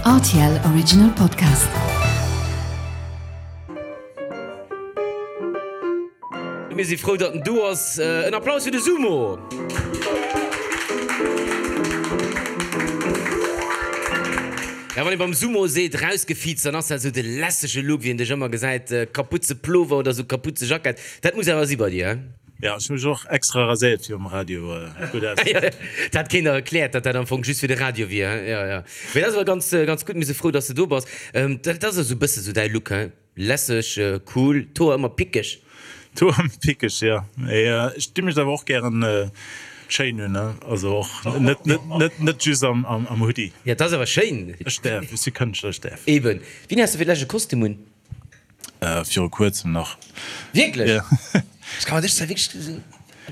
Rtl Original Podcast. Mir si frou, datt en do ass. En Applaus fir de Sumo! Ja, wann ee beim Sumo seet rausgefiizt, dann ass dat esou de lässege Look, wéi een dech ëmmer gesäit, Kaputze-Plover oder esou Kaputze-Jackett. Dat muss awer si bei dir, he? Ja, ech hu mech och extra raséiert fir um Radio gutt auszesinn. Dat hat keen der erkläert, datt dat am Fong just fir de Radio wier, he? Jo, jo. Mee dat ass awer ganz, ganz gutt. Mir si frou, datt s de do bass. Dat ass esou e bësse sou däi Look, he? Lässeg, cool, d'Hoer ëmmer pickeg. D'Hoer ëmmer pickeg, jo. Mee ech di mech awer och gären schéin un, ne? Also och net, net, net, net just am, am Hoodie. Jo, dat ass awer schéin. Ech däerf, ech si Kënschtler, ech däerf. Eben. Wéini has de fir d'lescht e Kostüm un? Viru kuerzem nach. Wierklech? Ja. Ech ka mer dech zwar wierklech,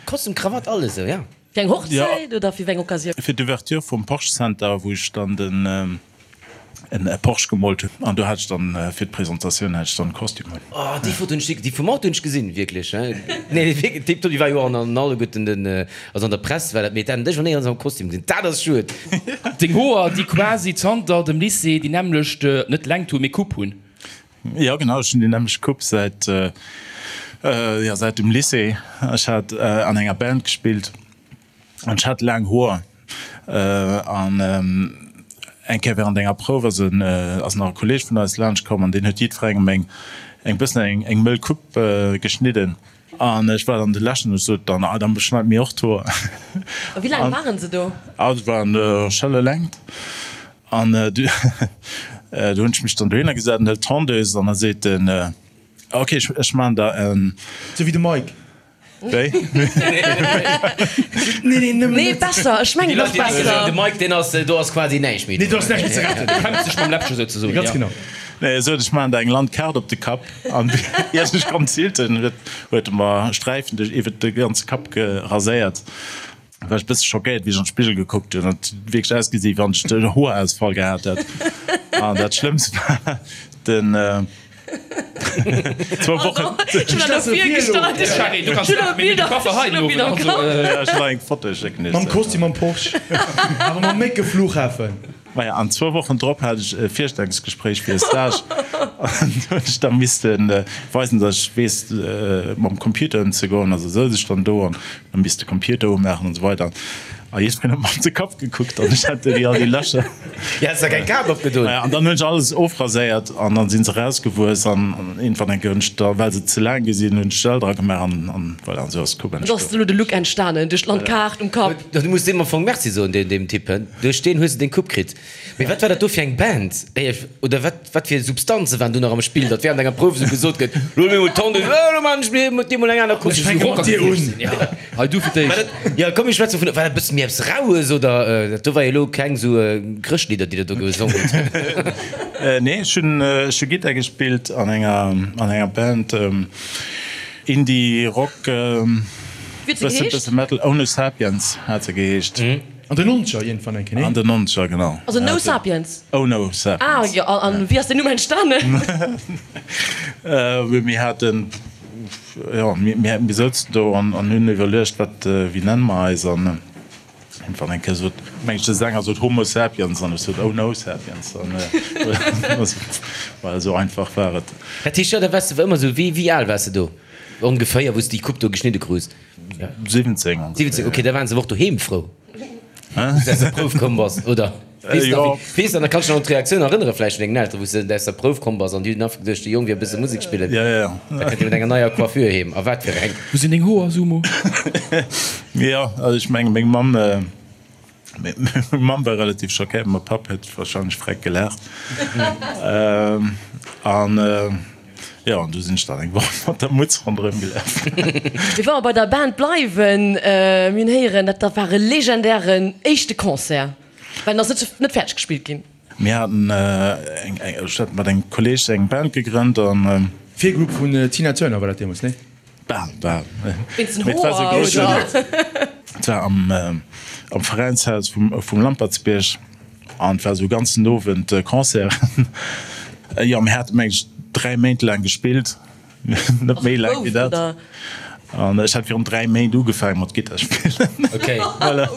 Kostüm, Krawatt, alles esou, ja. Fir eng Hochzäit oder fir wéi eng Occasioun? Fir d'Ouverture vum Porsche Center, wou ech dann den en Porsche gemoolt hunn. An do hat ech dann fir d'Presentatioun hat ech dann Kostüm un. Oh, déi Foto hunn ech, déi vum Auto hunn ech gesinn, wierklech. Nee, wierklech, déi déi war jo an an alleguerten den, also an der Press war dat, mee dat dech an néierens am Kostüm gesinn, dat ass schued. Deng Hoer, déi quasi zanter dem Lycée déi nämmlecht, net Längt hunn, mee Coupe hunn. Jo genau, ech hunn déi nämmlecht Coupe säit jo säit dem Lycée. Ech hat an enger Band gespillt an ech hat laang Hoer an eng Kéier während enger Prouf ass en ass nach e Kolleeg vun eis laanscht komm an deen huet jiddwerengem eng eng bëssen eng eng mëll Coupe geschnidden an ech war dann de leschten an ech sot dann, ah dann schneit mir och d'Hoer. A wéi laang waren se do? Ah se waren schelle Längt. An du hunn ech mech dann dohinner gesat an hëlt d'Tondeuse an da seet en, Ok, ech maachen der en. Sou wéi de Mike. Wéi? Nee, nee, nëmmen Nee, besser, ech mengen och besser. De Mike, deen ass, do ass quasi näischt méi. Nee, do ass näischt méi ze retten. Du kämpfs dech mam Läppche souzesoen, Ganz genau. Nee, e sot, ech maachen der eng Landkaart op de Kapp. An ier ech konnt zilten, huet e mer Sträifen duerch iwwert de ganze Kapp geraséiert. War ech bësse schockéiert wéi ech an d'Spigel gekuckt hunn. Et huet wierklech ausgesi wéi wann ech den Hoerausfall gehat hätt. An dat Schlëmmst war den zwou Wochen. Mam Kostüm am Porsche, awer mam mécke Flughafen. Maja, an zwou Wochen drop hat ech e Virstellungsgespréich fir e Stage an do hunn ech da misste weisen, datt ech weess mam Computer ëmzegoen. Also souz ech dann do an hu misste de Computer umaachen an esou weider. A jiddwereen huet mer op de Kapp gekuckt an ech hat déi all déi Lächer. Jo, häss der keng Kap opgedoen. Maja, an dann hunn ech alles ofraséiert an dann si se erausgewuess an iergendwann eng Kéier hunn ech da, well se ze laang gi sinn, hunn ech Gel dra gemaach an an voilà, an esou ass d'Coupe Esou ass entstoen. elo de Look entstanen, duerch d'Landkaart um Kapp. Du muss deem am Fong Merci soen, deem Typ, he? Duerch deen hues de deng Coupe kritt. Mee wat war dat do fir eng Band? Oder wat, wat fir Substanze waren do nach am Spill, datt während enger Prouf esou gesot gëtt, Lo mir mol d'Hand un, lo maan ech mir mat dir mol eng aner Coupe. Ech fänke mat dir un. Hei du fir d'éischt. Jo, komm mir schwätzen vun, war dat e bësse méi eppes Raues oder dat do war jo elo keng esou Chrëschtlidder, déi der do gesongen hutt? Nee, ech hunn, ech hu Gittar gespillt an enger, an enger Band. Indie Rock, bësse Metal, Oh No Sapiens hat se geheescht. An den Nonzeger iergendwann eng Kéier, nee? An den Nonzeger, genau. Also No Sapiens? Oh No Sapiens. Ah jo, an wéi ass deen Numm entstanen? Mir haten, jo, mir souzen do an hunn iwwerluecht, wat, wéi nenne mer eis? An Irgendwann eng Kéier sot, meng ech, de Sänger sot Homo sapiens an ech sot Oh no sapiens an voilà, esou einfach war et. Dat heescht, jo, da waars de ëmmer esou, wéi, wéi al waars de do ongeféier, wou s de déi Coupe do geschnidde krus? 17 ongeféier. 17, ok, da waren se awer och doheem frou, wou s de aus der Prouf komm bass, oder? Weess nach, wéi, weess nach, da kanns du dech nach un d'Reaktioun erënnere vläicht vun dengen Elteren, wou s de aus der Prouf komm bass an déi hunn einfach geduecht, de Jong wier e bësse Musek spillen. Ja, ja. Da kënnt e mat enger neier Coiffure heem. A wat fir eng! Wou sinn deng Hoer, Sumo? Jo, also ech menge meng Mamm, meng Mamm war relativ schockéiert, mäi Papp huet warscheinlech freck gelaacht. An jo, an du sinn ech dann eng Woch mat der Mutz ronderëm gelaf. Mee wa mer bei der Band bleiwen, mir hunn héieren, dat war e legendären éischte Concert. Well en ass net net fäerdeg gespillt ginn. Mir haten eng, ech hat mat engem Kolleeg eng Band gegrënnt an. Virgroup vun Tina Turner war dat deemools, nee? Bal, bal. Wéinst den Hoer, oder? Et war am am Veräinshaus vum vum Lampertsbierg an et war esou e ganzen Owend Concert. Jo, mir hate meng ech 3 Méint laang gespillt. Net méi laang wéi dat. An ech hat virun 3 Méint ugefaangen mat Gittar spillen. Okay. Voilà.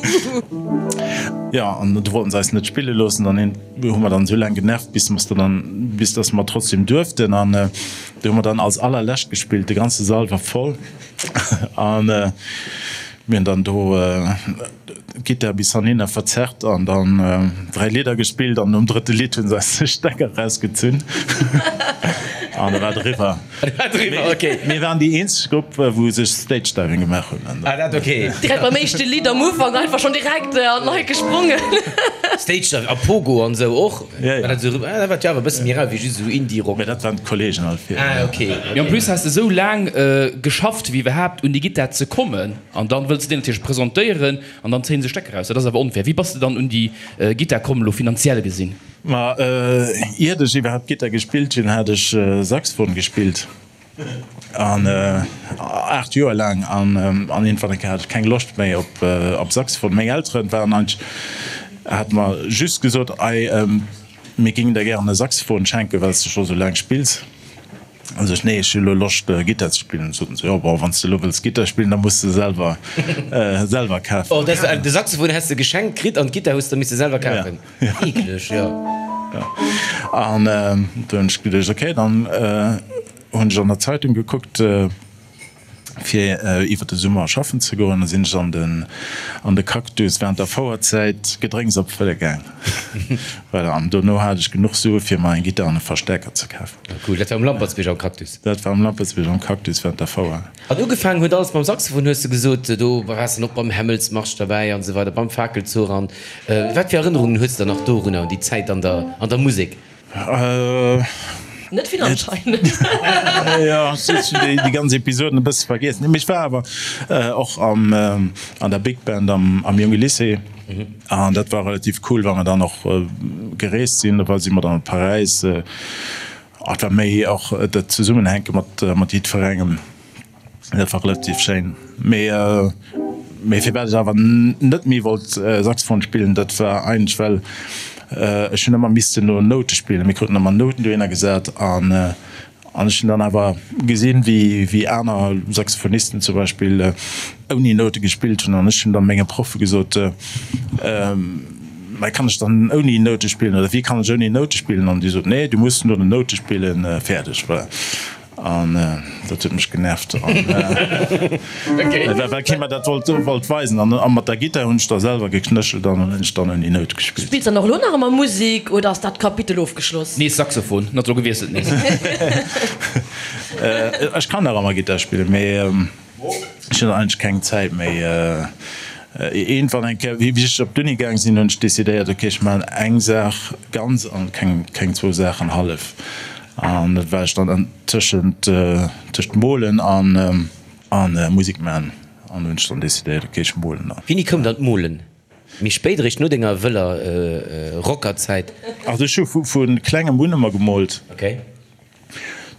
Jo, an du wollten se eis net spille loossen. Dann hunn, hu mer dann esou laang genervt, bis mer dann, bis dass mer trotzdem duerften. An du hu mer dann als allerlescht gespillt. De ganze Sall war voll. An mir hunn dann do d'Gittar bis hanhinner verzerrt an dann 3 Lidder gespillt. An nom drëtte Lidd hu se eis de Stecker rausgezunn. An da war et eriwwer. Mir waren déi eenzeg Grupp, wou sech Stage Diving gemaach hunn. Ah, dat ok. Direkt beim éischte Lidd am Ufank einfach schonn direkt an d'Leit gesprongen. Stage Diving a Pogo an esou och? Ja, ja. Dat war jo awer e bësse méi rau wéi just esou Indie-Rock. Mä dat waren d'Kollegen all fir. Ah, ok. Mee en plus has de esou laang geschafft fir iwwerhaapt un déi Gittar ze kommen an dann wëlls de déi natierlech presentéieren an dann zéien se Stecker raus. Dat ass awer onfair. Wéi bass de dann un déi Gittar komm elo finanziell gesinn? Ma iert ech iwwerhaapt Gittar gespillt hunn, hat ech Saxophon gespillt an 8 Joer laang an an iergendwann eng Kéier hat ech keng Loscht méi op op Saxophon. Meng Elteren waren eigentlech, hate mer just gesot, ei mir géingen der gären e Saxophon schenken, well s de scho sou laang spills. An sech, nee, ech hu lo Loscht Gittar ze spillen. Soten se, jo bon, wann s de lo wëlls Gittar spillen, da muss de selwer selwer kafen. Oh, dat de Saxophon häss de geschenkt kritt an d'Gittar hues de misse selwer kafen? Eekleg, jo. Jo. An du hunn ech geduecht, okay, dann hunn ech an der Zeitung gekuckt, Fir iwwer de Summer schaffen ze goen, sinn ech an den an de Cactus während der Fouerzäit Gedrénks opfëlle gaang. Voilà, an dono hat ech genuch Sue fir mer eng Gittar an e Verstärker ze kafen. Cool, dat war um Lampertsbierg am Cactus? Dat war um Lampertsbierg am Cactus während der Fouer. An ugefaangen huet alles mam Saxophon hues de gesot, do waars de och beim Hämmelsmarsch derbäi an esou weider, beim Fakelzuch an wat fir Erënnerungen hues de dann nach dorunner, un déi Zäit an der an der Musek? Net vill anscheinend. Jo, ech hunn déi ganz Episoden e bësse vergiessen. Mee ech war awer och am an der Big Band am am Jonge Lycée an dat war relativ cool, well mer dann och gereest sinn. Do si mer dann op Paräis. Et war méi och dat Zesummenhänke mat mat jiddwerengem. Dat war relativ schéin. Mee mee firwat ech awer net méi wollt Saxophon spillen, dat war eigentlech well ech hunn ëmmer missten no Noute spillen. Mir kruten ëmmer Nouten dohinner gesat an an ech hunn dann awer gesinn, wéi wéi aner Saxophonisten zum Beispill ouni Noute gespillt hunn an ech hunn dann menge Proffe gesot, Mä kann ech dann ouni Noute spillen oder wéi kann ech ouni Noute spillen? An déi soten, Nee, du muss no den Noute spillen, fäerdeg. Voilà. An dat huet mech genervt, well kee mer dat wollt weisen. An mat der Gittar hunn ech da selwer geknéchelt an hunn ech dann ouni Nout gespillt. Spills dann och elo nach ëmmer Musek oder ass dat Kapitel ofgeschloss? Nees Saxophon, net elo gewiesselt nees. Ech kann nach ëmmer Gittar spillen, mee Ech hunn eigentlech keng Zäit méi. Iergendwann eng Kéier, wéi ech op d'Uni gaang sinn, hunn ech decidéiert, ok, ech maachen eng Saach ganz an keng, keng zwou Saachen hallef. An dat war ech dann tëschent, tëscht Molen an, an Musek maachen. An hunn ech dann decidéiert, ok, ech molen dann. Wéini koum dann d'Molen? Méi spéit, eréischt no denger wëller Rockerzäit? Also ech hu vu klengem un ëmmer gemoolt. Ok.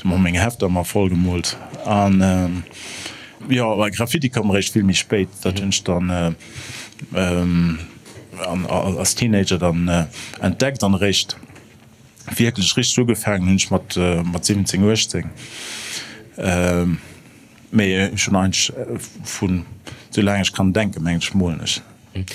Du hu meng Hefter ëmmer voll gemoolt an jo Graffiti koum eréischt vill méi spéit. Dat hunn ech dann als Teenager dann entdeckt an eréischt wierklech richteg ugefaangen hunn ech mat 17, 18. Mee ech hunn eigentlech vun sou laang ech kann denken, mengen ech, molen ech.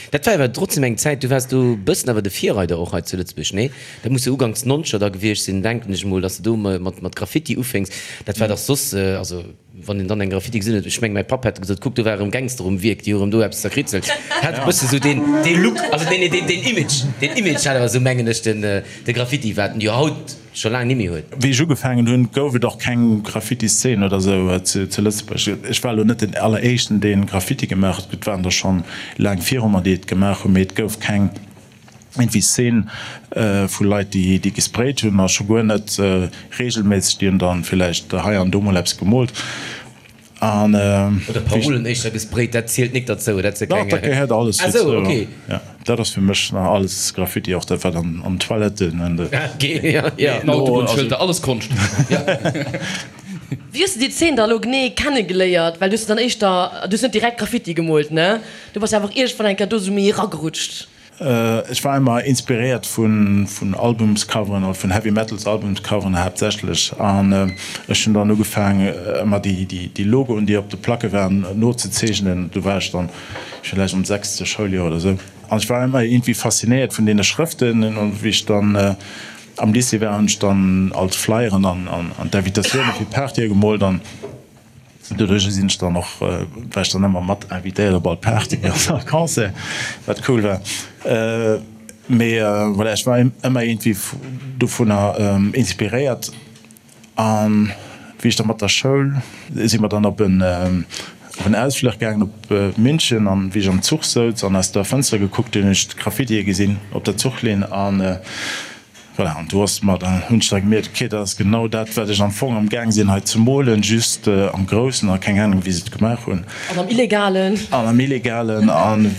Dat war awer trotzdem eng Zäit, du waars do e bëssen awer de Virreider och hei zu Lëtzebuerg, nee? Dat muss jo uganks nonzeger da gewiescht sinn, denken ech emol, dass de do mat mat Graffiti ufénks. Dat war dach soss, also wann een dann eng Graffiti gesinn huet, ech meng mäi Papp hätt gesot, kuck do war erëm Gangster um Wierk, déi hu erëm do eppes zerkritzelt. Hat e bësse sou deen dee Look, also deen deen deen Image, deen Image hat awer sou mengen ech den de Graffiti, wat en jo haut scho laang nimmi huet. Wéi ech ugefaangen hunn, gouf et och keng Graffiti-Szene oder sou zu Lëtzebuerg. Ech war elo net den alleréischten, dee Graffiti gemaach huet, et waren der schonn laang viru mer, déi et gemaach hunn, mee et gouf keng iergendwéi Szene vu Leit, déi gesprayt hunn a scho guer net reegelméisseg. Déi hunn dann villäicht hei an do mol eppes gemoolt. An Oder Parolen éischter gesprayt, dat zielt nik derzou, dat se keng. Dach, dat gehéiert alles dozou. Ah sou, ok. Ja, dat ass fir mech nach alles Graffiti, och dat wat an an Toiletten an de. Ok, ja, ja. Den Autobunnschëlter, alles Konscht. Ja. Wéi hues de déi Zeen da elo genee kennegeléiert? Well du hues dann éischter, du hues net direkt Graffiti gemoolt, ne? Du bass jo einfach iergendwann eng Kéier do sou méi eragerutscht. Ech war emmer inspiréiert vun Albumscoveren oder vun Heavy Metals Albumscoveren haaptsächlech an ech hunn dann ugefaang emmer déi Logoen déi op de Placke waren nozezeechnen. Do war ech dann villäicht am sechste Schouljoer oder sou an ech war emmer iergendwéi faszinéiert vun deene Schrëften an wéi ech dann am Lycée war hunn ech dann all d'Flyeren an d'Invitatioune fir d'Partye gemoolt an Doduerch sinn ech dann och, war ech dann ëmmer mat invitéiert op all Party an all Concert, wat cool war. Mee voilà, ech war ëmmer iergendwéi dovunner inspiréiert. An wéi ech da mat der Schoul, si mer dann op en op en Ausfluch gaangen op München an wéi ech am Zuch souz an aus der Fënster gekuckt hunn, hunn ech d'Graffitie gesinn op der Zuchlinn an Voilà, an do ass mer dann, hunn ech da gemierkt, ok, dat ass genau dat, wat ech am Fong am Gaang sinn hei ze molen, just am Groussen a keng Ahnung, wéi se et gemaach hunn. An am Illegalen. An am Illegalen. An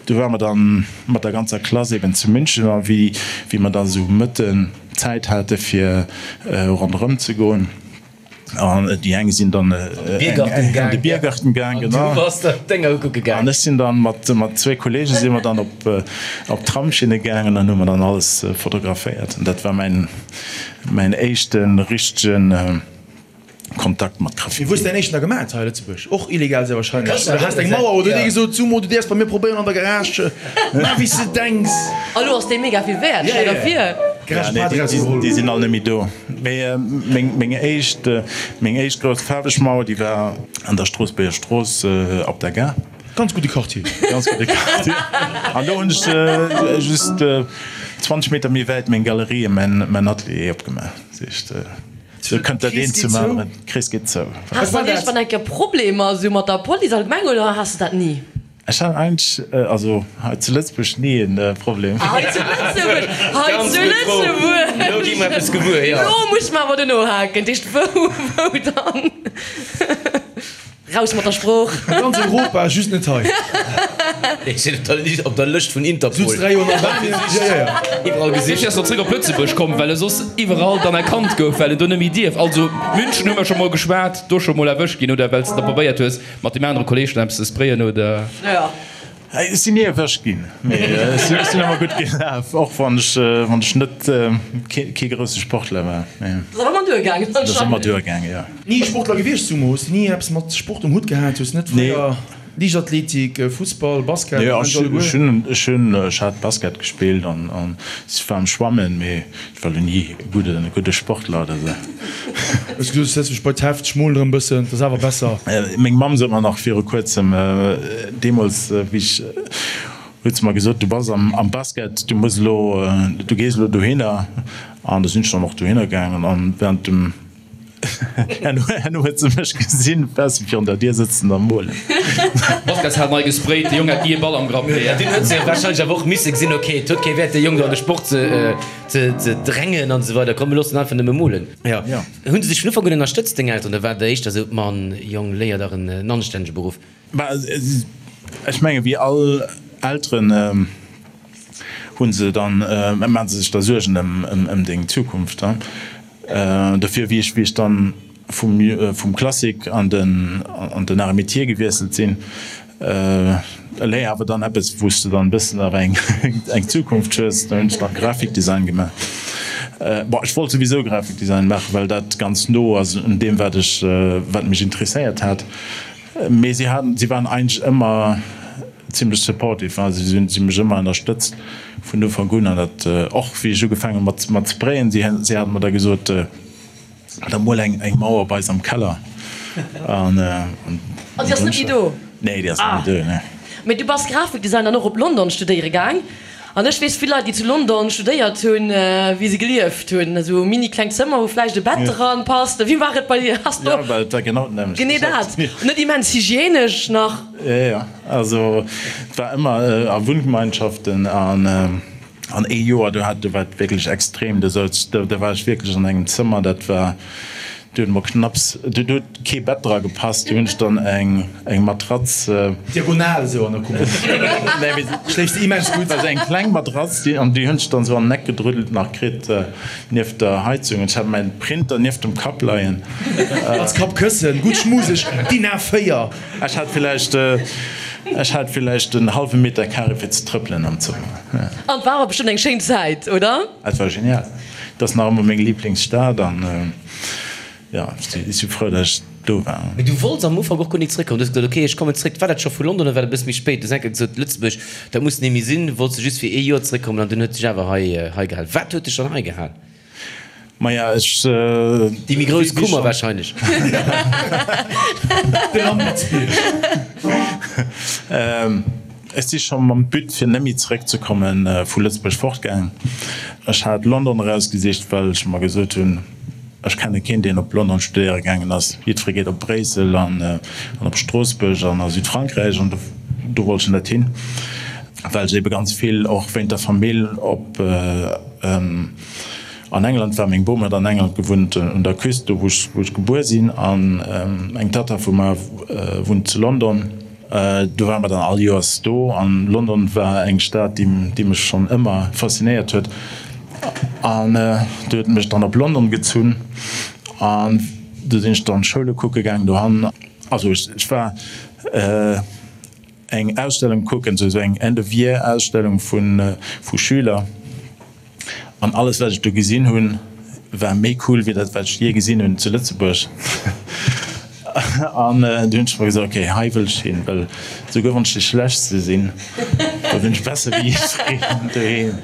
du ware mer dann mat der ganzer Klass eben zu München a wéi, wéi mer da sou Mëtten Zäit hate fir ronderëm ze goen, An déi eng sinn dann an de Biergarten gaang, genau. An du bass der d'Dénger ukucke gaang. An ech sinn dann mat zwéi Kollege si mer dann op d'Tramsschinne gaangen an hu mer dann alles fotograféiert. An dat war mäin mäin éischte richtege Kontakt mat Graffiti. Wéi hues de däin éischten da gemaat hei a Lëtzebuerg? Och illegal sehr wahrscheinlech. Oder has de eng Mauer oder huet ee gesot, Sumo, du däerfs bei mir probéieren an der Garage, maach wéi s de denks. A lo ass dee mega vill wäert, stell der vir. Ja, nee, déi sinn all net méi do. Mee meng éischt, meng éischt grouss faarweg Mauer, déi war an der Stroossbuerger Strooss op der Gare. Ganz gudde Quartier. Ganz gudde Quartier. An do hunn ech just 20 Meter méi wäit meng Galerie, mäin Atelier opgemaach. Dat heescht, sou kënnt dat eent zum aneren. D'Krees geet zou. Has de dann iergendwann eng Kéier Problemer esou mat der Police allgemeng oder has de dat ni? Ech hat eigentlech, also hei zu Lëtzebuerg, ni e Problem. Hei zu Lëtzebuerg, hei zu Lëtzebuerg! Elo gi mer eppes gewuer, jo. Elo muss mer awer dono haken. Dat heescht, wou, wou dann? Raus mat der Sprooch! A ganz Europa, just net hei. Ech sinn op der Lëscht vun Interpol. Sutz 3 Joer an Albanien. Ja, ja, ja. Iwwerall gesicht. Dofir ass en zréck op Lëtzebuerg komm, well e soss iwwerall dann erkannt gouf, well en do net méi dierf. Also München hu mer scho mol geschwat, do scho mol erwëscht ginn, oder well s de da probéiert hues, Mat deem anere Kolleg dann eppes ze sprayen oder? Jo. Ech sinn ni erwëscht ginn, mee ech sinn ëmmer gutt gelaf, och wann ech wann ech net kee grousse Sportler war. Mee Dat ass awer ëmmer duergaangen dat ass ëmmer duergaangen, jo. Ni Sportler gewiescht, Sumo? Hues de ni eppes mat Sport um Hutt gehat? Hues net fréier Liichtathletik, Fussball, Basket, Nee, ech hunn ech hunn ech hat Basket gespillt an an ech war am Schwammen, mee Ech war lo ni e gudde, gudde Sportler oder sou. Hues gesot, ech setz mech bei d'Heft, ech molen erëm bëssen, dat ass awer besser. Meng Mamm sot mer nach viru kuerzem, deemools wéi ech, huet se mer gesot, du bass am, am Basket, du muss elo, du gees elo dohinner. An da sinn ech dann och dohinner gaangen an während dem. Herno huet se mech gesinn bessen virun der Dier sëtzen a molen. Baskets hat nei gesprayt, de Jong hat ni e Ball am Grapp. Dunn huet se wahrscheinlech awer och misse gesinn, ok, et huet kee Wäert de Jong do an de Sport ze drängen an esou weider, komm mir loossen einfach nëmme molen. Jo. Hunn se dech vun Ufank un ënnerstëtzt, deng Elteren, oder war et éischter esou, Mann, Jong, léier dach en anstännege Beruff? Bah, ech menge wéi all Elteren hu se dann, maache se sech da Suergen ëm deng Zukunft. Dofir, wéi ech, wéi ech dann vum, vum Classique an den, an den Arts et Métiers gewiesselt sinn, léier awer dann eppes, wou s de dann e bëssen awer eng, eng Zukunft hues, da hunn ech dann Graphikdesign gemaach. Bon, ech wollt souwisou Graphikdesign maachen, well dat ganz no ass un deem, wat ech, wat mech interesséiert hat. Mee si haten, si waren eigentlech ëmmer zimlech supportive, also si hunn si mech ëmmer ënnerstëtzt vun Ufank un an dat och wéi ech ugefaangen hu mat mat sprayen, si si haten mer da gesot, da mol eng eng Mauer bei eis am Keller an an An déi ass net méi do? Nee, déi ass net méi do, nee. Mee du bass Grafikdesign dann och op London studéiere gaang. An ech weess vill Leit, déi zu London studéiert hunn, wéi se gelieft hunn. Esou mini kleng Zëmmer, wou vläicht e Bett dran passt. Wéi war et bei dir? Has du Ja, well et war genau d'nämmlecht. Genee dat. Net immens hygienesch nach. Jo, jo. Also et war ëmmer a Wunngemeinschaften an an ee Joer, do hat, do war et wierklech extrem. Do souz, do war ech wierklech an engem Zëmmer, dat war, do huet mer knapps, do huet kee Bett dra gepasst, do hunn ech dann eng eng Matratz. Diagonal esou an der Kummer. Nee, mee Schléifs de immens gutt. War esou eng kleng Matratz, déi, an déi hunn ech dann esou an den Eck gedrüddelt nach kritt, nieft der Heizung. An ech hat mäin Printer nieft dem Kapp leien. Als Kappkëssen, gutt schmuseg, DIN A4. Ech hat villäicht. Ech hat villäicht en hallwe Meter Carré fir ze trëppelen am Zëmmer. An et war awer bestëmmt eng schéin Zäit, oder? Et war genial. Et ass nach ëmmer meng Liblingsstad an jo, ech si frou, datt ech do war. Mee du wollts am Ufank och guer nik zréckkommen. Du hues gesot, ok, ech kommen zréck. War dat scho vu London oder war dat e bësse méi spéit? Du hues eng Kéier gesot, Lëtzebuerg, dat muss ni méi sinn. Wollts du just fir ee Joer zréckkommen an dunn huet dech awer hei hei gehal. Wat huet dech dann hei gehal? Maja, ech. Déi méi grouss Kummer wahrscheinlech. De Lampertsbierg. Ech si scho mam But fir net méi zeréckzekommen vu Lëtzebuerg fortgaang. Ech hat London erausgesicht, well ech mer gesot hunn, ech kenne keen deen op London studéiere gaangen ass. Jiddweree geet op Bréissel an op Stroossbuerg an a Südfrankräich an do wollt ech net hin, well ech ebe ganz vill och wéint der Famill op An England war. Meng Bom huet an England gewunnt, un der Küst, do wou ech gebuer sinn, an eng Tatta vu mer wunnt zu London. Do ware mer dann all Joers do, an London war eng Stad, déi mech schonn ëmmer faszinéiert huet, an do huet et mech dann op London gezunn, an do sinn ech dann Schoule kucke gaangen dohan. Also ech war eng Ausstellung kucken, sou eng End of Year Ausstellung vu Schüler, an alles wat ech do gesinn hunn, war méi cool wéi dat wat ech jee gesinn hunn zu Lëtzebuerg. An du hunn ech mer gesot, ok, hei wëll ech hin, well souguer wann ech déi schlechtste sinn, da sinn ech besser wéi jiddwereen doheem.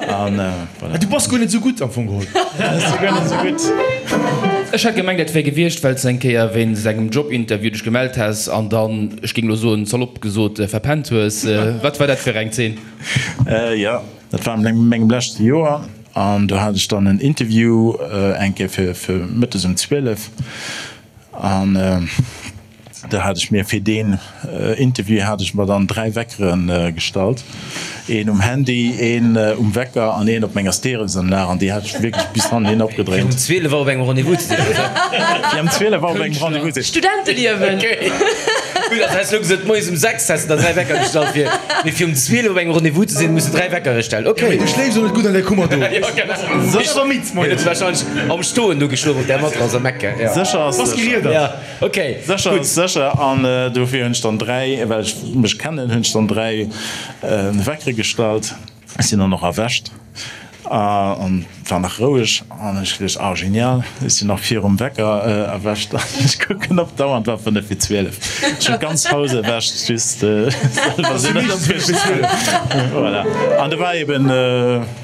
An voilà. Du bass guer net sou gutt am Fong geholl. Ech si guer net sou gutt. Ech hat gemengt, dat wär gewiescht, well s de eng Kéier wéinst engem Jobinterview dech gemellt häss an dann, ech géing elo soen, salopp gesot, verpennt hues. Wat war dat fir eng Zeen? Jo, dat war an mengem leschte Joer an do hat ech dann en Interview eng Kéier fir mëttes um 12 an Do hat ech mir fir deen Interview hat ech mer dann 3 Weckeren gestallt, een um Handy, een um Wecker an een op menger Stereosanlag an déi hat ech wierklech bis hannen hin opgedréint. Fir um 12 Auer op engem Rendez-vous ze sinn, oder? Fir um 12 Auer op engem Rendez-vous ze sinn. Studenteliewen! Okay. Gutt, also häss elo gesot, moies um 6 häss de der 3 Wecker gestallt fir, mee fir um 12 op engem Rendez-vous ze sinn, muss de 3 Weckere stellen. Okay. Mee du schléifs och net gutt an där Kummer do. Jo, genau. Bass awer midd moies. Huet wahrscheinlech am Stoen do geschlof op där Matrass am Eck, ja. Sécher ass Bass sécher. geriedert. Ja. Ok, Sécher gutt. ass sécher. An dofir hunn ech dann 3, well ech mech kennen, hunn ech dann 3 Weckere gestallt. Ech sinn dann och erwächt an war nach roueg an ech geduecht, ah genial, ech sinn nach virum Wecker erwächt an ech kucken op d'Auer an et war 5 vir 12. Ech hunn d'ganz Haus erwächt, just selwer sinn net erwächt. Voilà. An do war eben,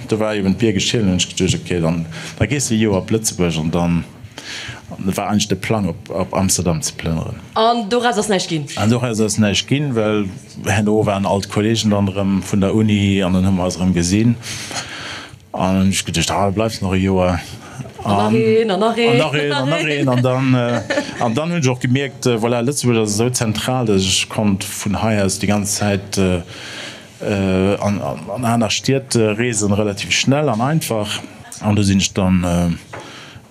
do war eben d'Bier geschielt an hunn ech geduecht, ok, dann da gees de e Joer op Lëtzebuerg an dann An et war eigentlech de Plang op Amsterdam ze plënneren. An doraus ass näischt ginn? An doraus ass näischt ginn, well herno waren all d'Kollegen dann erëm vun der Uni an dann hu mer eis erëm gesinn. An dann hunn ech geduecht, ah da bleifs nach e Joer. An nach een, an nach een. An nach een, an nach een. An dann, an dann hunn ech och gemierkt, voilà, Lëtzebuerg ass esou zentral, datt ech konnt vun hei aus déi ganz Zäit an aner Stied reesen, relativ schnell an einfach. An do sinn ech dann,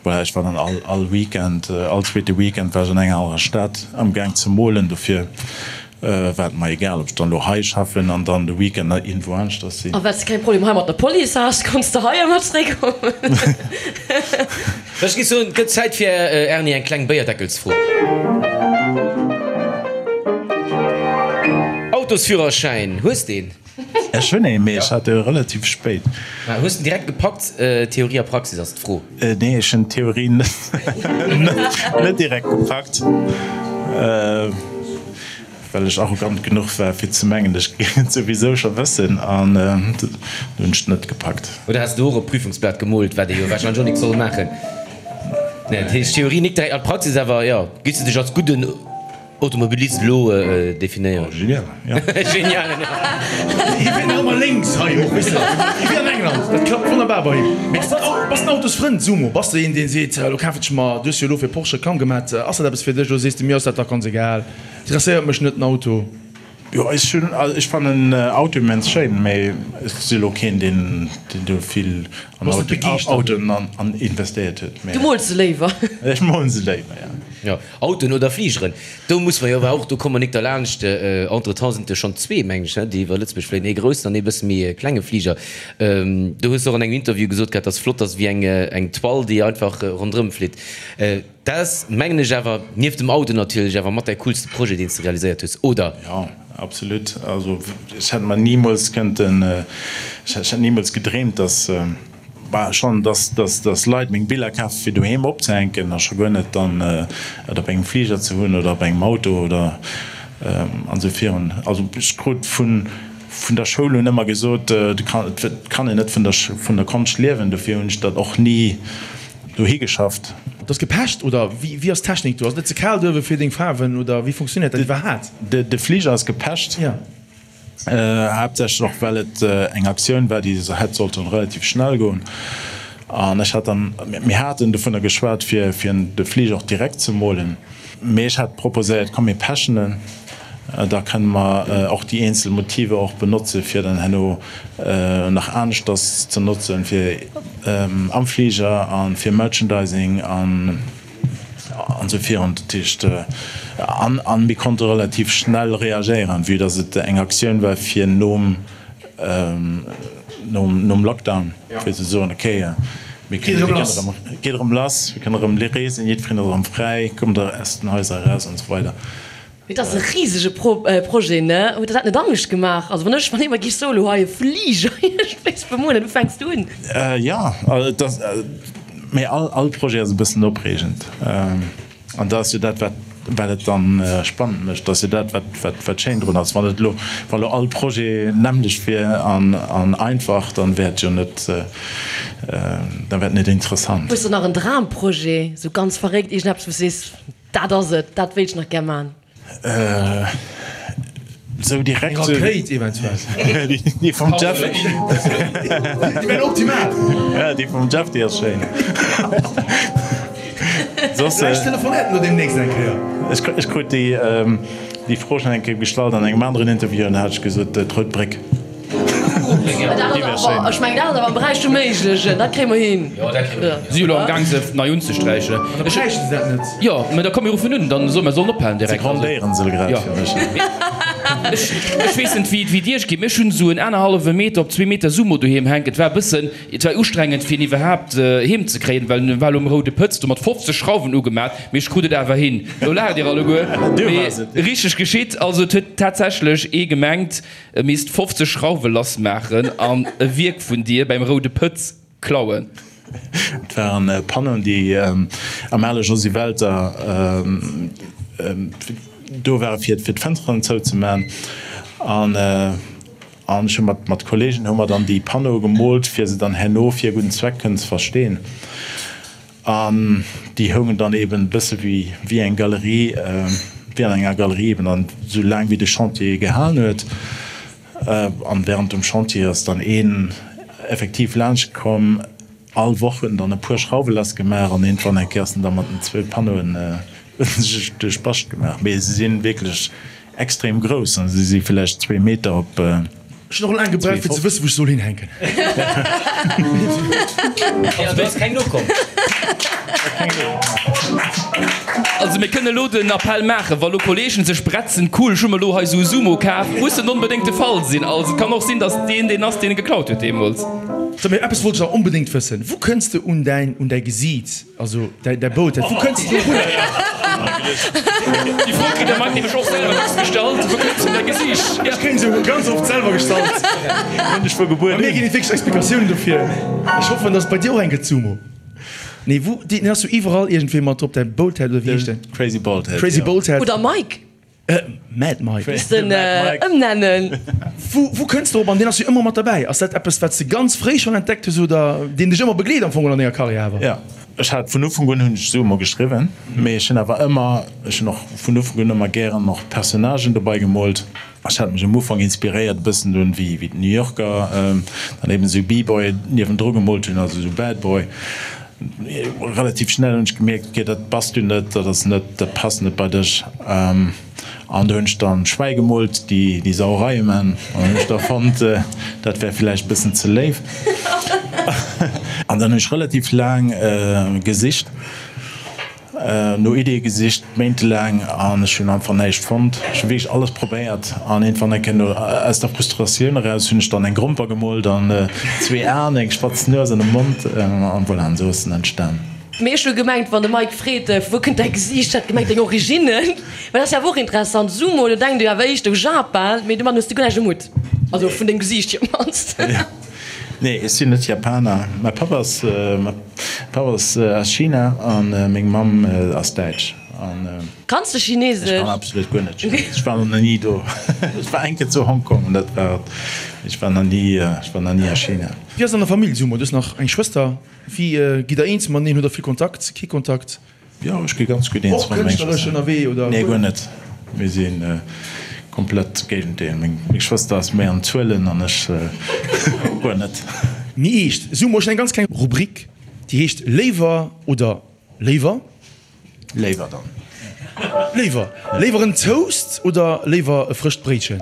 voilà, ech war dann all all Weekend, all zweete Weekend war ech an enger anerer Stad am Gaang ze molen. Dofir war et mer egal, ob ech dann elo hei schaffen an dann de Weekend nach iergendwou aneschters sinn. A well s de keng Problem hei mat der Police has, konns de hei ëmmer zréckkommen. Ech géif soen, et gëtt Zäit fir Erni eng kleng Béierdeckelsfro. Autosführerschäin, hues de een? Ech hunn een, mee ech hat e relativ spéit. Hues de en direkt gepackt? Theorie a Praxis ass d'Fro. Nee, ech hunn d'Theorie net direkt gepackt, well ech arrogant genuch war fir ze mengen, ech géing et souwisou scho wëssen, an dunn hunn ech et net gepackt. Oder has de och op d'Prüfungsblat gemoolt, wat ee jo warscheinlech och nik soll maachen? Nee, dat heescht Theorie nik direkt, an d'Praxis awer, jo. Giffs de dech als gudden Automobilist elo definéieren? Oh, genial, jo. Genial, jo. Hie fiert nach ëmmer lénks hei och, weess de, wéi an England. Dat klappt wonnerbar bei him. Mee bass bass den Autosfrënd, Sumo? Bass de een, deen seet, elo kafen ech mer, du hues jo elo fir Porsche Reklamm gemat, ass dat eppes fir dech oder sees de, mir ass dat dach ganz egal, interesséiert mech net den Auto? Jo, ech hunn, also ech fannen Auto immens schéin, mee ech si lo keen deen deen do vill an Autoen an investéiert huet, mee. Du mools se léiwer? Ech molen se léiwer, jo. Jo, Autoen oder Fligeren, do muss mer jo awer och, do komme mer nik derlaanscht. Entretemps sinn et jo schonn zwee, mengen ech, ne, déi iwwer Lëtzebuerg fléien, ee groussen an ee bësse méi klenge Fliger. Do hues de och an engem Interview gesot gehat, dass flott ass wéi eng eng Toile, déi einfach ronderëm flitt. Dat ass, mengen ech awer, nieft dem Auto natierlech, awer mat däi coolste Projet, deen s de realiséiert hues, oder? Jo. Absolut. Also ech hätt mer nimools kënnten, ech hätt nimools gedreemt, dass, bah, schonn, dass, dass, dass Leit meng Biller kafen, fir doheem opzehänken, a scho guer net dann et op engem Fliger ze hunn oder op engem Auto oder an esou virun. Also ech krut vun, vun der Schoul un ëmmer gesot, et kann een net vun der, vun der Konscht liewen, dofir hunn ech dat och ni dohi geschafft. Et ass gepecht oder wéi ass d'Technik do? Ass et net ze kal duerwe fir deng Faarwen oder wéi funktionéiert dat iwwerhaat? De Fliger ass gepecht, haaptsächlech och well et eng Aktioun war déi hätt sollten relativ schnell goen an ech hat dann, mir haten dovunner geschwat fir de Fliger och direkt ze molen. Mee ech hat proposéiert, komm mir pechen en, da kënne mer och déi eenzel Motiver och benotze fir dann herno nach aneschters ze notzen, fir am Fliger a fir Merchandising an esou virun. Dat heescht, an mir konnte relativ schnell reagéieren, vue dass et eng Aktioun war fir nom, nom Lockdown, fir ze soen, okay, mir kënnen erëm, geet erëm lass, mir kënnen erëm reesen, jiddwereen ass erëm fräi, kommt aus den Haiser eraus an esou weider. Mee et ass e risege Projet, ne? Huet der dat net Angscht gemaach? Also wann ech, wann ee mer géif soen, elo hei e Fliger iergendwéis bemolen, wou fänks du un? Jo, et ass, mee all Projet ass e bëssen opreegend. An dat ass jo dat, wat, wat et dann spannend mécht. Dat ass jo dat, wat, wat, wat schéin drun ass. Wann et elo, wa elo all Projet nämmlecht wier an, an einfach, dann wär et jo net, dann wär et net interessant. Hues de nach en Dramprojet, esou ganz verréckt, iergendeppes, wou s de sees, dat ass et, dat wéilt ech nach gär man? Sou direkt. Eng Rakéit eventuell. Déi vum Jeff. Déi wär optimal. Ja, déi vum Jeff, déi ass schéin. Soss. Vläicht telefonéiert en elo deemnächst eng Kéier. Ech krut déi Fro schonn eng Kéier gestallt an engem aneren Interview an da hat ech gesot, d'Rout Bréck. Ech mengen dat ass awer am Beräich vum Méiglechen, dat kréie mer hin. Si jo elo am Gaang se nei unzesträichen. An da bräichte se dat net. Jo, mä da komm mir ruffen un, dann soe mer sollen ophalen Se direkt. grondéieren se grad fir mech. Ech weess net wéi et iech geet, mee ech hunn esou en anerhallwe Meter op zwee Meter Sumo doheem hänken. Et war e bëssen, et war ustrengend fir en iwwerhaapt heem ze kréien, well en war elo um roude Pëtz do mat 50 Schrauwen ugemat, mee ech krut et awer hin. Elo laacht dir alleguer, mee richteg geschitt. Also et huet tatsächlech ee gemengt, E misst 50 Schrauwe lass maachen an e Wierk vun dir beim Roude Pëtz klauen. Et waren Panneauen, déi am ale Josy Welter do ware fir d'Fënsteren zouzemaachen. An ech hu mat Kollegen hu mer dann déi Panneaue gemoolt, fir se dann herno fir e gudden Zweck kënnen ze versteen. An déi houngen dann eben e bësse wéi wéi eng Galerie, wéi an enger Galerie eben, an esou laang wéi de Chantier gehalen huet. An während dem Chantier ass dann een effektiv laanscht komm, all Woch huet en dann e puer Schrauwe lass gemaach an iergendwann eng Kéier ass en da mat den zwou Panneauen sech duerch d'Bascht gemaach. Mee se si wierklech Extrem grouss, an se si villäicht zwee Meter op. Ech hunn och laang gebraucht fir ze wëssen wou ech soll hinhänken. Also do ass keng nokomm. Also mir kënne lo den Appell maachen, wa lo Kollegen sech bretzen, cool ech hu mer lo hei sou e Sumo kaf, muss net onbedéngt de Fall sinn. Also et kann och sinn, datt deen deen ass deen e geklaut huet deemools. So mee eppes wollt ech nach onbedéngt wëssen, wou kënns de un däin un däi Gesiit? Also däi Boot, wou kënns de dorunner? Déi Fro kritt der Mike nämlech och selwer dacks gestallt, Wou kënns du un däi Gesiicht? Ech kréien se ganz oft selwer gestallt. Hunn dech vu Gebuert un. Bei mir ginn et wierklech Explikatiounen dofir. Ech hoffen, dass et bei dir och eng gëtt, Sumo. Nee, wou, deen ass jo iwwerall iergendwéi mat drop, däi Boathead oder wéi heescht deen? Crazy Baldhead, jo. Crazy Baldhead. Oder Mike. Mad Mike. Misst en ëmnennen. Wou kënns de drop? An deen ass jo ëmmer mat derbäi. Ass dat eppes, wat s de ganz fréi schonn entdeckt hues oder deen dech ëmmer begleet am Fong an denger Karriär awer? Jo, ech hat vun Ufank un hunn ech Sumo geschriwwen, mee ech hunn awer ëmmer, ech hunn och vun Ufank un ëmmer gären och Personnagen dobei gemoolt. Ech hat mech am Ufank inspiréiert e bëssen un wéi d'New Yorker dann eben esou B-Boy niewendru gemoolt hunn, also esou Bad Boy. Relativ schnell hunn ech gemierkt, ok dat bass du net, dat ass net, dat passt net bei dech. An do hunn ech dann Schwäi gemoolt, déi déi Sauereie man. An dann hunn ech da fonnt, dat wär villäicht bëssen ze léif. An dann hunn ech relativ laang gesicht. No Iddie gesicht, méintelaang, an ech hunn einfach näischt fonnt. Ech hu wierklech alles probéiert an iergendwann eng Kéier no aus der Frustratioun eraus hunn ech dann eng Gromper gemoolt an zwee Aen, eng spatz Nues an e Mond an voilà, an esou ass en entstan. Mee ech hu gemengt, wann de Mike freet, vu wou kënnt däi Gesiicht, hat gemengt deng Originnen. Well dat ass jo awer och interessant. Sumo, do denkt ee jo awer éischter u Japan, mee domat hues de guer näischt um Hutt. Also vun dengem Gesiicht hier op d'mannst. Nee, ech sinn net Japaner. Mäi Papp ass, mäi Papp ass aus China a meng Mamm ass Däitsch. An. Kanns de Chinesesch? Ech kann absolut guer net Chinesesch. Ech war nach ni do. Ech war eng Kéier zu Hongkong an dat war et. Ech war nach ni, ech war nach ni a China. Wéi ass et an der Famill, Sumo? Du hues nach eng Schwëster. Wéi gitt der eens mateneen? Hutt der vill Kontakt, kee Kontakt? Jo, ech gi ganz gutt eens mat menger Schwëster. Och kënschtleresch ënnerwee, oder? Nee, guer net. Mir si komplett d'Géigendeel. Meng Schwëster ass méi an Zuelen an ech guer net. Méi eescht, Sumo, ech hunn eng ganz kleng Rubrik, déi heescht Léiwer oder léiwer? Léiwer dann. Léiwer. Léiwer en Toast oder léiwer e frëscht Bréitchen?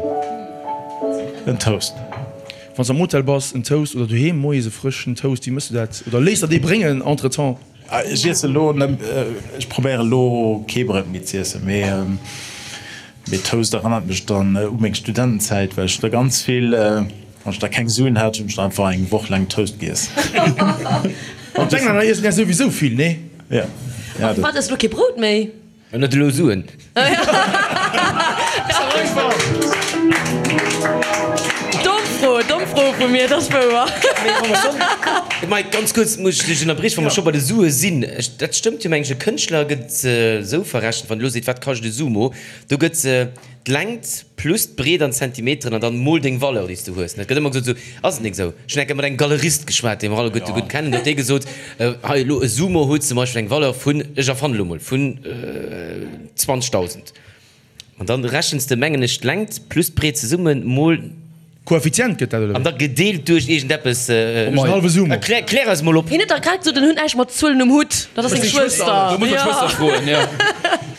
En Toast. Wann s am Hotel bass, en Toast oder doheem moies e frëschen Toast, wéi mëss du dat? Oder léiss der dee bréngen entretemps? Ech iesse lo, ech probéiere lo kee Bréit méi z'iessen, mee mee Toast erënnert mech dann u meng Studentenzäit, well ech da ganz vill, wann ech da keng Suen hat, hunn ech da einfach eng Woch laang Toast giess. An d'Englänner iessen ja souwisou vill, nee? Ja. Ja, dat. Wat, ess lo kee Brout méi? En huet elo Suen. Domm Fro, domm Fro vu mir, dat ass wouer. Mee wa mer schonn, Mike, ganz kuerz muss ech dech ënnerbriechen, wa mer scho bei de Sue sinn, ech, dat stëmmt jo, mengen ech, e Kënschtler gëtt esou verrechent, wann e lo seet, wat kascht e Sumo, do gëtt D'Längt plus d'Breet an Zentimeteren an dann mol deng Valeur déi s du hues. Et gëtt ëmmer gesot, esou ass et nik esou. Ech hunn eng Kéier mat engem Galerist geschwat, dee mer alleguerte gutt kennen, do huet dee gesot, hei elo e Sumo huet zum Beispill eng Valeur vun, ech erfannen elo mol, vun 20.000. An dann rechens de, mengen ech, d'Längt plus d'Breet zesummen mol. Koeffizient gëtt dat, oder An da gedeelt duerch iergendeppes. Duerch en hallwe Sumo. Klär, klär eis mol op. Hien huet dach grad gesot, en huet näischt mat Zuelen um Hutt. Dat ass seng Schwëster. Do muss mer d'Schwëster froen, jo.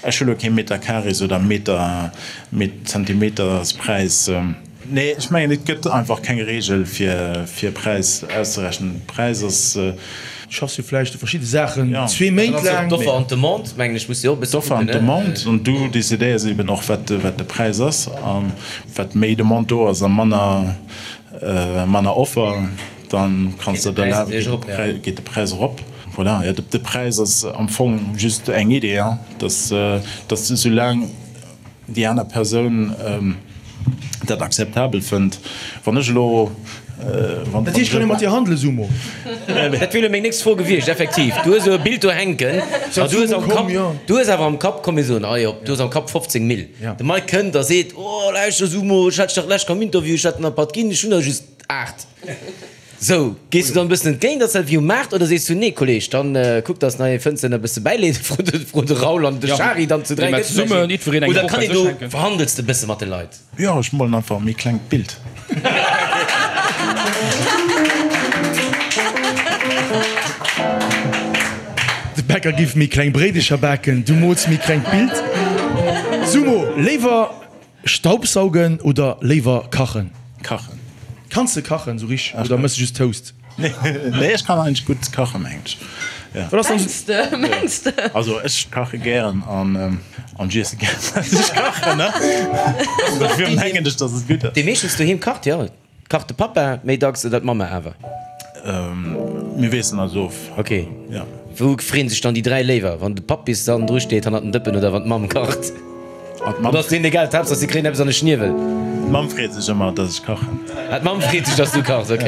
Ech hu lo kee Meterkarees oder Meter, Zentimeterspräis. Nee, ech mengen, et gëtt einfach keng Reegel, fir, fir e Präis auszerechnen. Präis ass. Du schaffs jo vläicht u verschidde Saachen zwee Méint laang. D'Offer an d'Demande, mengen ech, muss jo och e bësse kucken. D'Offer an d'Demande, an du decidéiers eben och, wat, wat de Präis ass. A wat méi Demande do ass a manner, manner Offer, da kanns de der erlaben, geet de Präis erop. Voilà, jo, de Präis ass am Fong just eng Idee, dass, dass soulaang déi aner Persoun dat akzeptabel fënnt, wann ech elo, wann. Dat heescht, kann ee mat dir handelen, Sumo? Dat wier elo meng nächst Fro gewiescht, effektiv. Du hues elo e Bild do hänken a du hues am Kapp, du hues awer am Kapp, komm mir soen, ah jo, du hues am Kapp 15 Mille. De Mike kënnt a seet, oh lauschter Sumo, ech hat dech dach d'lescht am Interview, ech hat der nach e Patt ginn, ech hunn der just 8. Sou, gees du dann e bëssen entgéint, ass dat wéi um Maart, oder sees du, nee Kolleg, dann kuck dass nach ee fënns deen der e bësse bäileet, fro de, fro de Raoul an de Shari dann zu 3 gëtt vläicht een, oder kann een do, verhandels de e bësse mat de Leit? Jo, ech molen einfach e méi klengt Bild. De Bäcker giff méi kleng Bréidecher baken, du mools méi klengt Bild. Sumo, léiwer Staubsaugen oder léiwer kachen? Kachen. Kanns de kachen sou richteg oder mëss de just Toast? Nee, ech kann eigentlech gutt kachen, mengen ech. Wat ass dann Mengs de, mengs de? Also ech kache gären an an ech iesse gären wat ech kachen, ne? Dofir mengen ech, dass et gutt ass. Dee meeschtens doheem kacht, jo. Kacht de Pappa méi dacks oder d'Mamma awer? Mir wiesselen eis of. Ok. Wou freeën sech dann déi 3 léiwer? Wann de Papp bis dann dru steet hannert den Dëppen oder wann d'Mamm kacht? Oder ass deenen egal, d'Haaptsaach si kréien eppes an de Schniewel? D'Mamm freet sech ëmmer, dass ech kachen. Ah, d'Mamm freet sech, dass du kachs, ok.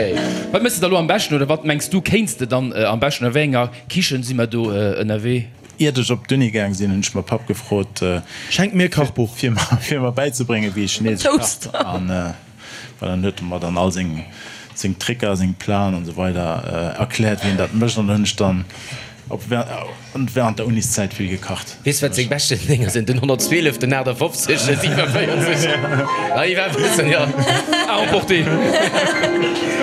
Wat méchs de da lo am beschten oder wat mengs du kéints de dann am beschten? A wéi enger Kichen si mer do ënnerwee? Iert ech op d'Uni gaang sinn, hunn ech mäi Papp gefrot, Schenk mir e Kachbuch. fir mer bäizebréngen, wéi ee Chinesesch kacht. Well dann huet e mer dann all seng seng Tricker, seng Plan an esou weider erkläert, wéi een dat mécht. An dann hunn ech dann op während der Uniszäit vill gekacht. Weess wat seng beschten Dénger sinn? Den 112, den 58, den 47. Ah, iwwer bëssen, jo. À emporter.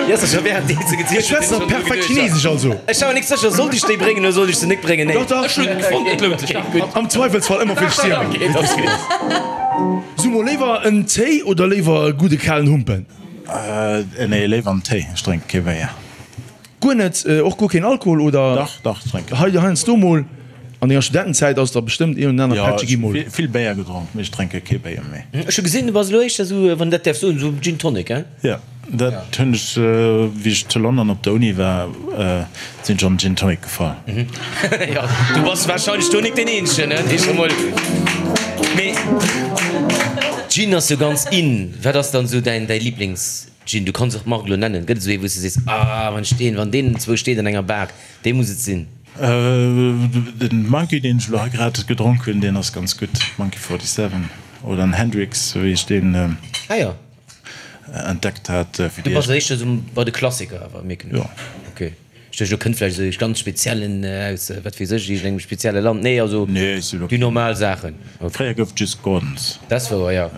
Jo, ass scho während deem se gezielt Ech schwätze nach perfekt Chinesesch, also. Ech war mer nik sécher, sollt ech déi bréngen oder sollt ech se nik bréngen? Nee. Dach, dach. Ech hunn et fonnt, et lount sech. Am Zweifelsfall ëmmer fir d'Stierwen. Okay, dat ass gutt. Sumo, léiwer en Téi oder léiwer e gudde kalen Humpen? Nee, léiwer en Téi, ech drénke kee Béier. Guer net? Och guer keen Alkohol oder? Dach, dach, ech drénken. Hei, heiansdo mol. An denger Studentenzäit ass der bestëmmt een oder aner Pättche gi mol. Jo, ech hu vill Béier gedronk, mee ech drénke kee Béier méi. Ech hu gesinn, du bass elo éischter esou, wann een dat däerf soen, esou Gin Tonic, hein? Jo. Dat hunn ech, wéi ech zu London op der Uni war, sinn ech an Gin Tonic gefall. Jo, du bass wahrscheinlech do nik deen eenzegen, ne, dee scho mol. Mee Gin ass jo ganz in. Wat ass dann esou däin, däi Lieblings-Gin? Du kanns och d'Mark elo nennen. Gëtt et esou ee wou s de sees, ah wann ech deen, wann deen zwou steet an enger Bar, dee muss et sinn? Den Monkey, deen ech elo hei grad gedronk hunn, deen ass ganz gutt, Monkey 47 oder en Hendrick's, wéi ech deen. Ah jo. Entdeckt hat fir déi. Du bass éischter esou bei de Klassiker awer, mierken ech. Jo. Ok. Ech duecht, elo kënnt vläicht esou ee ganz speziellen aus wat weess ech, iergendengem spezielle Land. Nee, also Nee, ech sinn ok. déi normal Saachen. Ok. Fréier gouf et just Gordons. Dat ass wouer, jo.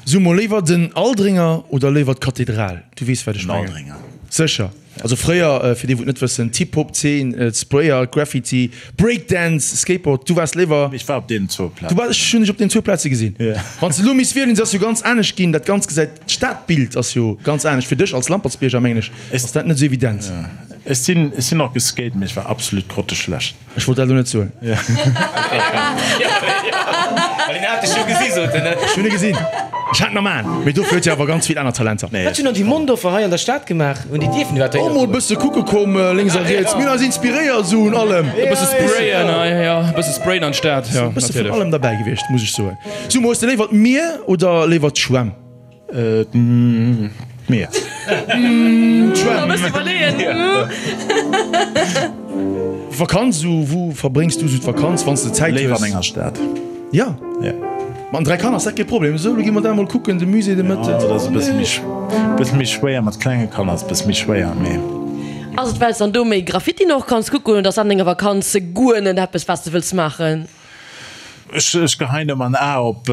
So mol, léiwer den Aldringer oder léiwer d'Kathedral? Du weess wat ech Den mengen. Aldringer. Sécher. Also fréier, fir déi wou et net wëssen, d'Hip-Hop-Zeen, d'Sprayer, Graffiti, Breakdance, Skateboard, du waars léiwer. Ech war op deenen zwou Plazen. Du waars, ech hunn dech op deenen zwou Plaze gesinn. Wann s de elo misst wielen, se ass jo ganz anescht ginn, dat Ganzt gesäit, d'Stadbild ass jo ganz anescht. Fir dech als Lampertsbierger, mengen ech, ass dat net esou evident. Ech sinn, ech sinn och geskate, mee ech war absolut grotteschlecht. Ech wollt dat elo net soen. Well en hat dech jo gesi, sot en. Ech hunn e gesinn. Ech hat en am Aen. Mee dofir huet hie awer ganz vill aner Talenter. Wat hunn dann déi Mondorfer hei an der Stad gemaach? Hunn déi dierfen iwwerhaapt Och mol e bësse kucke komm, lénks a riets. Mir hunn eis inspiréiert esou un allem. E bësse sprayen, jo, e bësse sprayen an d'Stad, jo, E bësse vun natierlech. allem derbäi gewiescht, muss ech soen. Sumo, hues de léiwer d'Mier oder léiwer d'Schwämm? D'Mier. D'Schwämm. Vakanz, esou wou verbréngs du esou d'Vakanz, wann s de Zäit hues? Léiwer an enger Stad. Ja? Ja. Mat den 3 Kanner ass dat kee Problem. Esou, lo gi mer da emol kucken, de Musée de Mëtten. Jo, dat ass e bësse méi, bësse méi schwéier, mat klenge Kanner ass e bësse méi schwéier, mee. Ass et well s dann do méi Graffitien och kanns kucken oder ass an denger Vakanz guer net eppes wat s de wëlls maachen? Ech geheien ëmmer en A op.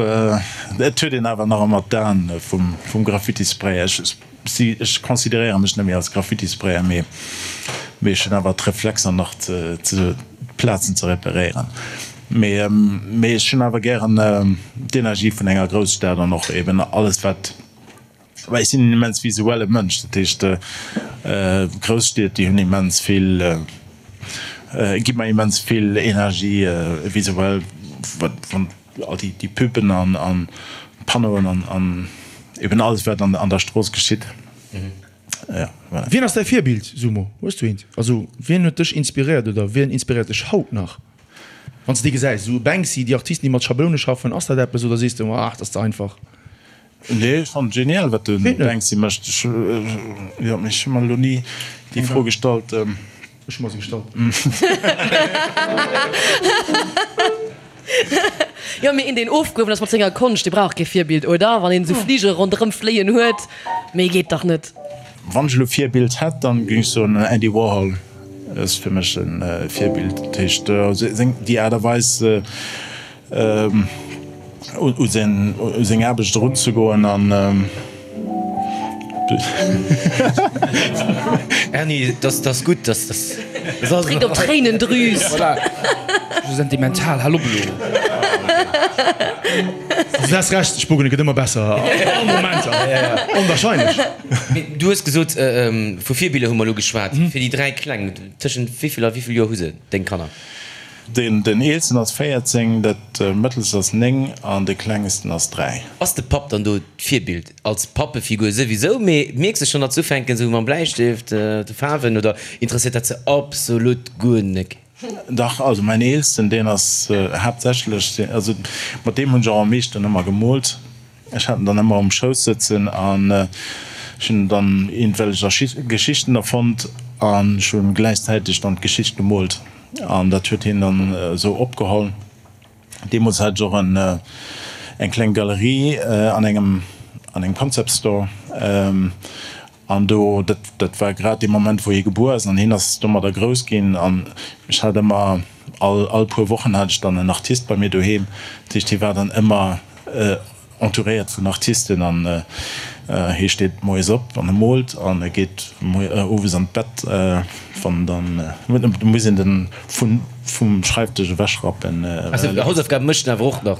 Et huet een awer nach ëmmer d'Aen vum Graffitisprayer. Ech consideréiere mech net méi als Graffitisprayer, mee ech hunn awer d'Reflexer nach d'Plazen ze reperéieren. Mee ech hunn awer gären d'Energie vun enger Grousstad an och eben alles wat. Well ech sinn en immens visuelle Mënsch, dat heescht Grousstied déi hunn immens vill, gi mer immens vill Energie visuell, wat wann all déi déi Puben an an Panneauen an an eben alles wat an an der Strooss geschitt. Ja, voilà. Wien ass däi Virbild, Sumo? Hues du eent? Also wien huet dech inspiréiert oder wien inspiréiert dech haut nach? Wann s de déi gesäis, esou Banksy, déi Artisten déi mat Schabloune schaffen, ass dat eppes oder sees de, ah dat ass ze einfach? Nee, ech fannen et genial wat de Banksy mécht. Ech, jo, mee ech hu mer elo ni déi Fro gestallt. Ech hu mer se gestallt. Jo, mee een deen ofgehuewen ass mat senger Konscht, dee brauch kee Virbild, oder? Wann een esou Fligere ronderëm fléien huet, méi geet dach net. Wann ech elo Virbild hätt, dann géing ech soen Andy Warhol ass fir mech e Virbild. Dat heescht seng, déi Aart a Weis, u seng Aarbecht erunzegoen an. Erny, dat ass gutt, dat ass. Dréckt op d'Tréinendrüs. Voilà. Sou sentimental, hal op elo. Du has Recht, ech bogen, et gëtt ëmmer besser all Momenter, onwahrscheinlech. Mee du hues gesot, vu Virbiller hu mer elo geschwat, fir déi 3 Kleng, tëschent wéi vill a wéi vill Joer hu se, deng Kanner? Den eelsten ass 14, dat mëttelst ass 9 an de klengsten ass 3. Ass de Papp dann do d'Virbild? Als Pappefigur souwisou, mee mierks de schonn, datt se ufänken esou mam Bläistéft, de Faarwen, oder interesséiert dat se absolut guer nek? Dach, also mäin eelsten, deen ass haaptsächlech, also mat deem hunn ech och am meeschten ëmmer gemoolt. Ech hat en dann ëmmer um Schouss sëtzen an ech hunn dann iergendwellech Geschichten erfonnt an ech hunn gläichzäiteg dann d'Geschicht gemoolt an dat huet hien dann esou opgeholl. Deemools hat ech och eng kleng Galerie an engem an engem Concept Store an do, dat dat war grad dee Moment wou hie gebuer ass an hien ass domadder grouss ginn an ech hat ëmmer all all puer Wochen hat ech dann en Artist bei mir doheem, dat heescht hie war dann ëmmer entouréiert vun Artisten an hie steet moies op an e moolt an e geet owes an d'Bett, wann dann muss een den vun vum Schreifdësch ewechrappen. Also Hausaufgaben mécht en awer och nach?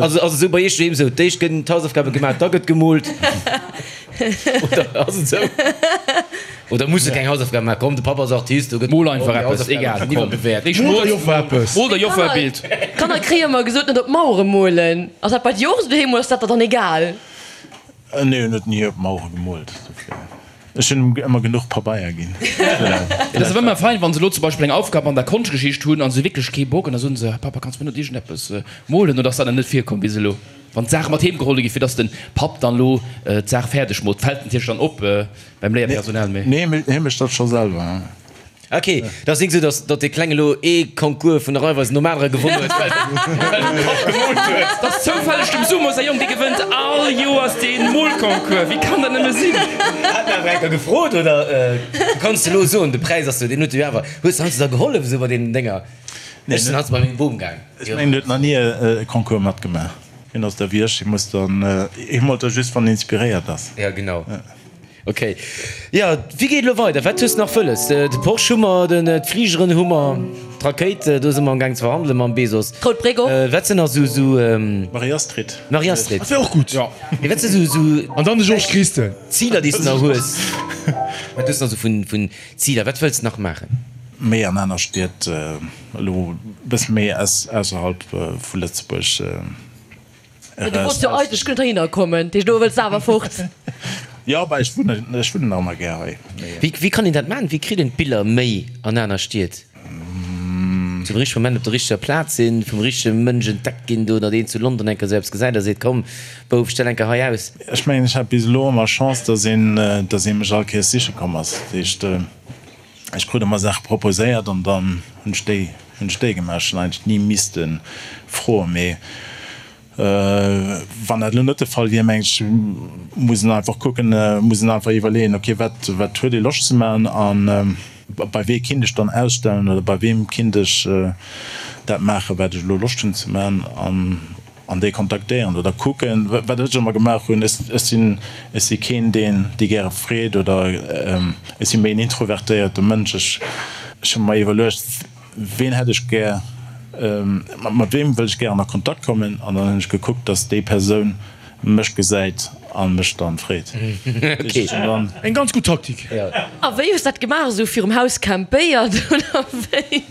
Also ass et esou bei iech doheem esou, d'éischt gënn d'Hausaufgabe gemaach, da gëtt gemoolt oder ass et esou? Oder muss e keng Hausaufgaben maachen? Komm, de Papp ass Artist, do gëtt Mol einfach eppes, egal, komm. Ech mol der Joffer eppes. Mol der Joffer e Bild. Kanner kréie ëmmer gesot, net op d'Mauere molen. Ass dat bei dir och esou doheem oder ass dat der dann egal? Nee, en huet ni op Mauere gemoolt. Ech hunn em ëmmer genuch Pabeier ginn. Et ass awer ëmmer fein, wann se elo zum Beispill eng Aufgab an der Konschtgeschicht hunn a se hu wierklech kee Bock an da soen se, Papa, kanns du mir net iergendeppes molen? Oder ass dat nach net virkomm bis elo, wann d'Saache mat heem geholl gi fir dass den Papp dann elo d'Saach fäerdeg moolt? Fält natierlech dann op beim Léierpersonal, mee. Nee, hie mécht dat scho selwer. Ok, dat ass nik esou, datt datt dee Klenge elo ee Concours vun der Raiffeisen nom anere gewonnen huet, well well de Papp gemoolt huet. Dat ass zoufälleg dem Sumo säi Jong, dee gewënnt all Joers dee Molconcours. Wéi kann dat nëmme sinn? Hat en awer eng Kéier gefrot, oder? Du kanns elo soen, de Präis ass jo, deen huet jo awer. Hues de heiansdo da gehollef esou bei deenen Dénger? Ech sinn heiansdo bei mengem Bom gaang. Ech mengen, en huet nach ni e Concours matgemaach. Hien ass da wéi ech, hie muss dann, hie moolt da just, wann en inspiréiert ass. Ja, genau. Ok, jo, wéi geet elo weider? Wat hues de nach wëlles? De Porsche hu mer, den d'Fligeren hu mer, d'Rakéit, do si mer am gaang ze verhandele mam Bezos. D'Rout Bréck och. Wat sinn nach sou, sou. Marie-Astrid. Marie-Astrid. Dat wär och gutt. Jo. Mee wat si sou, sou. An dann de Georges Christen. Ziler, déi s de nach hues? Wat hues de nach sou vun, vun Ziler? Wat wëlls de nach maachen? Méi an aner Stied, elo e bësse méi ausserhalb vu Lëtzebuerg. Mä du wollts jo eigentlech guer net heihinner kommen, dat heescht elo wëlls de awer fort. Jo, bah ech wunnen, ech wunnen nach ëmmer gär hei. Wéi, wéi kann een dat maachen? Wéi kritt een d'Biller méi an aner Stied? Zum richtege Moment op der richteger Plaz sinn, vum richtege Mënsch entdeckt ginn do, datt een zu London eng Kéier esou eppes gesäit a seet, komm Bouf, stell eng Kéier hei aus. Ech mengen, ech hat bis elo ëmmer Chance, datt een, datt ee mech all Kéiers siche komm ass. Dat heescht, ech krut ëmmer Saache proposéiert an dann hunn ech déi, hunn ech déi gemaach. Ech hunn eigentlech ni misste froen, mee wann dat elo net de Fall wier, mengen ech, muss een einfach kucken, muss een einfach iwwerleeën, okay, wat, wat huet ee Loscht ze maachen an bei wee kinnt ech dann ausstellen oder bei weem kinnt ech dat maachen, wat ech elo Loscht hunn ze maachen an An déi kontaktéieren oder kucken. Wat ech ëmmer gemaach hunn, ech sinn, ech si keen, deen déi gäre freet oder ech si méi en introvertéierte Mënsch. Ech, ech hu mer iwwerluecht, ween hätt ech gär, mat weem wëll ech gären a Kontakt kommen an dann hunn ech gekuckt, datt déi Persoun mech gesäit a mech dann freet. Eng ganz gutt Taktik. A wéi hues dat gemaach? Esou virum Haus campéiert oder wéi?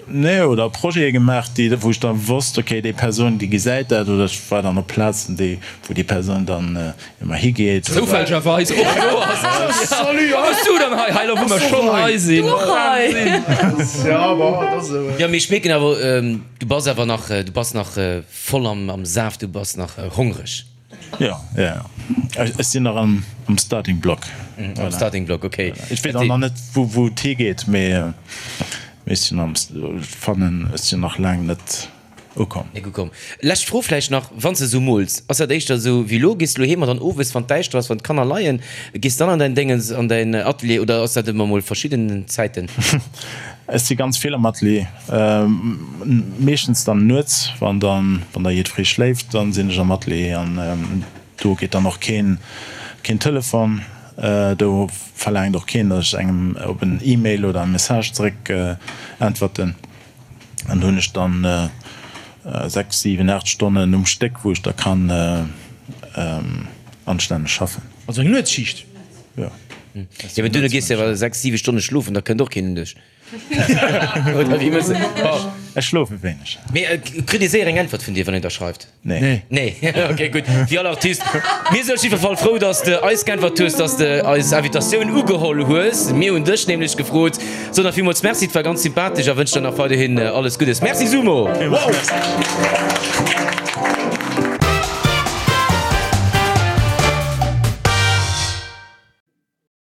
Nee, oder Projete gemaach, déi, wou ech da wosst, okay, déi Persoun, déi gesäit dat, oder ech war dann op Plazen, déi, wou déi Persoun dann ëmmer higeet. Zoufällegerweis och do ass. Salut, Wat méchs du dann hei? Hei, elo wou mer schonn hei sinn. Du och hei? Ja, bon, dat ass esou. Jo, mee ech mierken awer, du bass awer nach, du bass nach voll am Saaft, du bass nach hongreg. Jo, jo, jo. Ech sinn nach am Starting Block. Am Starting Block, okay. Ech weess och nach net, wou et higeet, mee ech sinn am, ech fannen, ech sinn nach laang net ukomm. Net ukomm. Lescht Fro vläicht nach, Wann s de esou mools, ass dat éischter esou wéi elo, gees de elo heem an dann owes, wann et däischter ass, wann d'Kanner leien, gees de dann an däin Déngens, an däin Atelier oder ass dat ëmmer mol verschidden Zäiten? Ech si ganz vill am Atelier, meeschtens dann nuets, wann dann wann da jiddweree schléift, dann sinn ech am Atelier an do geet dann och keen keen Telefon, do verlaangt och keen, datt ech engem op en E-Mail oder e Message zeréck äntwerten an do hunn ech dann 6, 7, 8 Stonnen um Stéck, wou ech da kann anstänneg schaffen. Also eng Nuetsschicht? Jo. Jo, mee duerno gees de awer 6, 7 Stonne schlofen, da kënnt och keen un dech. Oder wéi mëss de? Ech schlofe wéineg. Mee kritt ee séier eng Äntwert vun dir, wann een der schreift? Nee. Nee, ok, gutt. Wéi all Artist. Mir sinn op jiddwer Fall frou, dass de eis geäntwert hues, dass de eis Invitatioun ugeholl hues. Mir hunn dech nämlech gefrot. Soen der villmools Merci, et war ganz sympathesch a wënsch der nach weiderhin alles Guddes. Merci Sumo! Villmools Merci.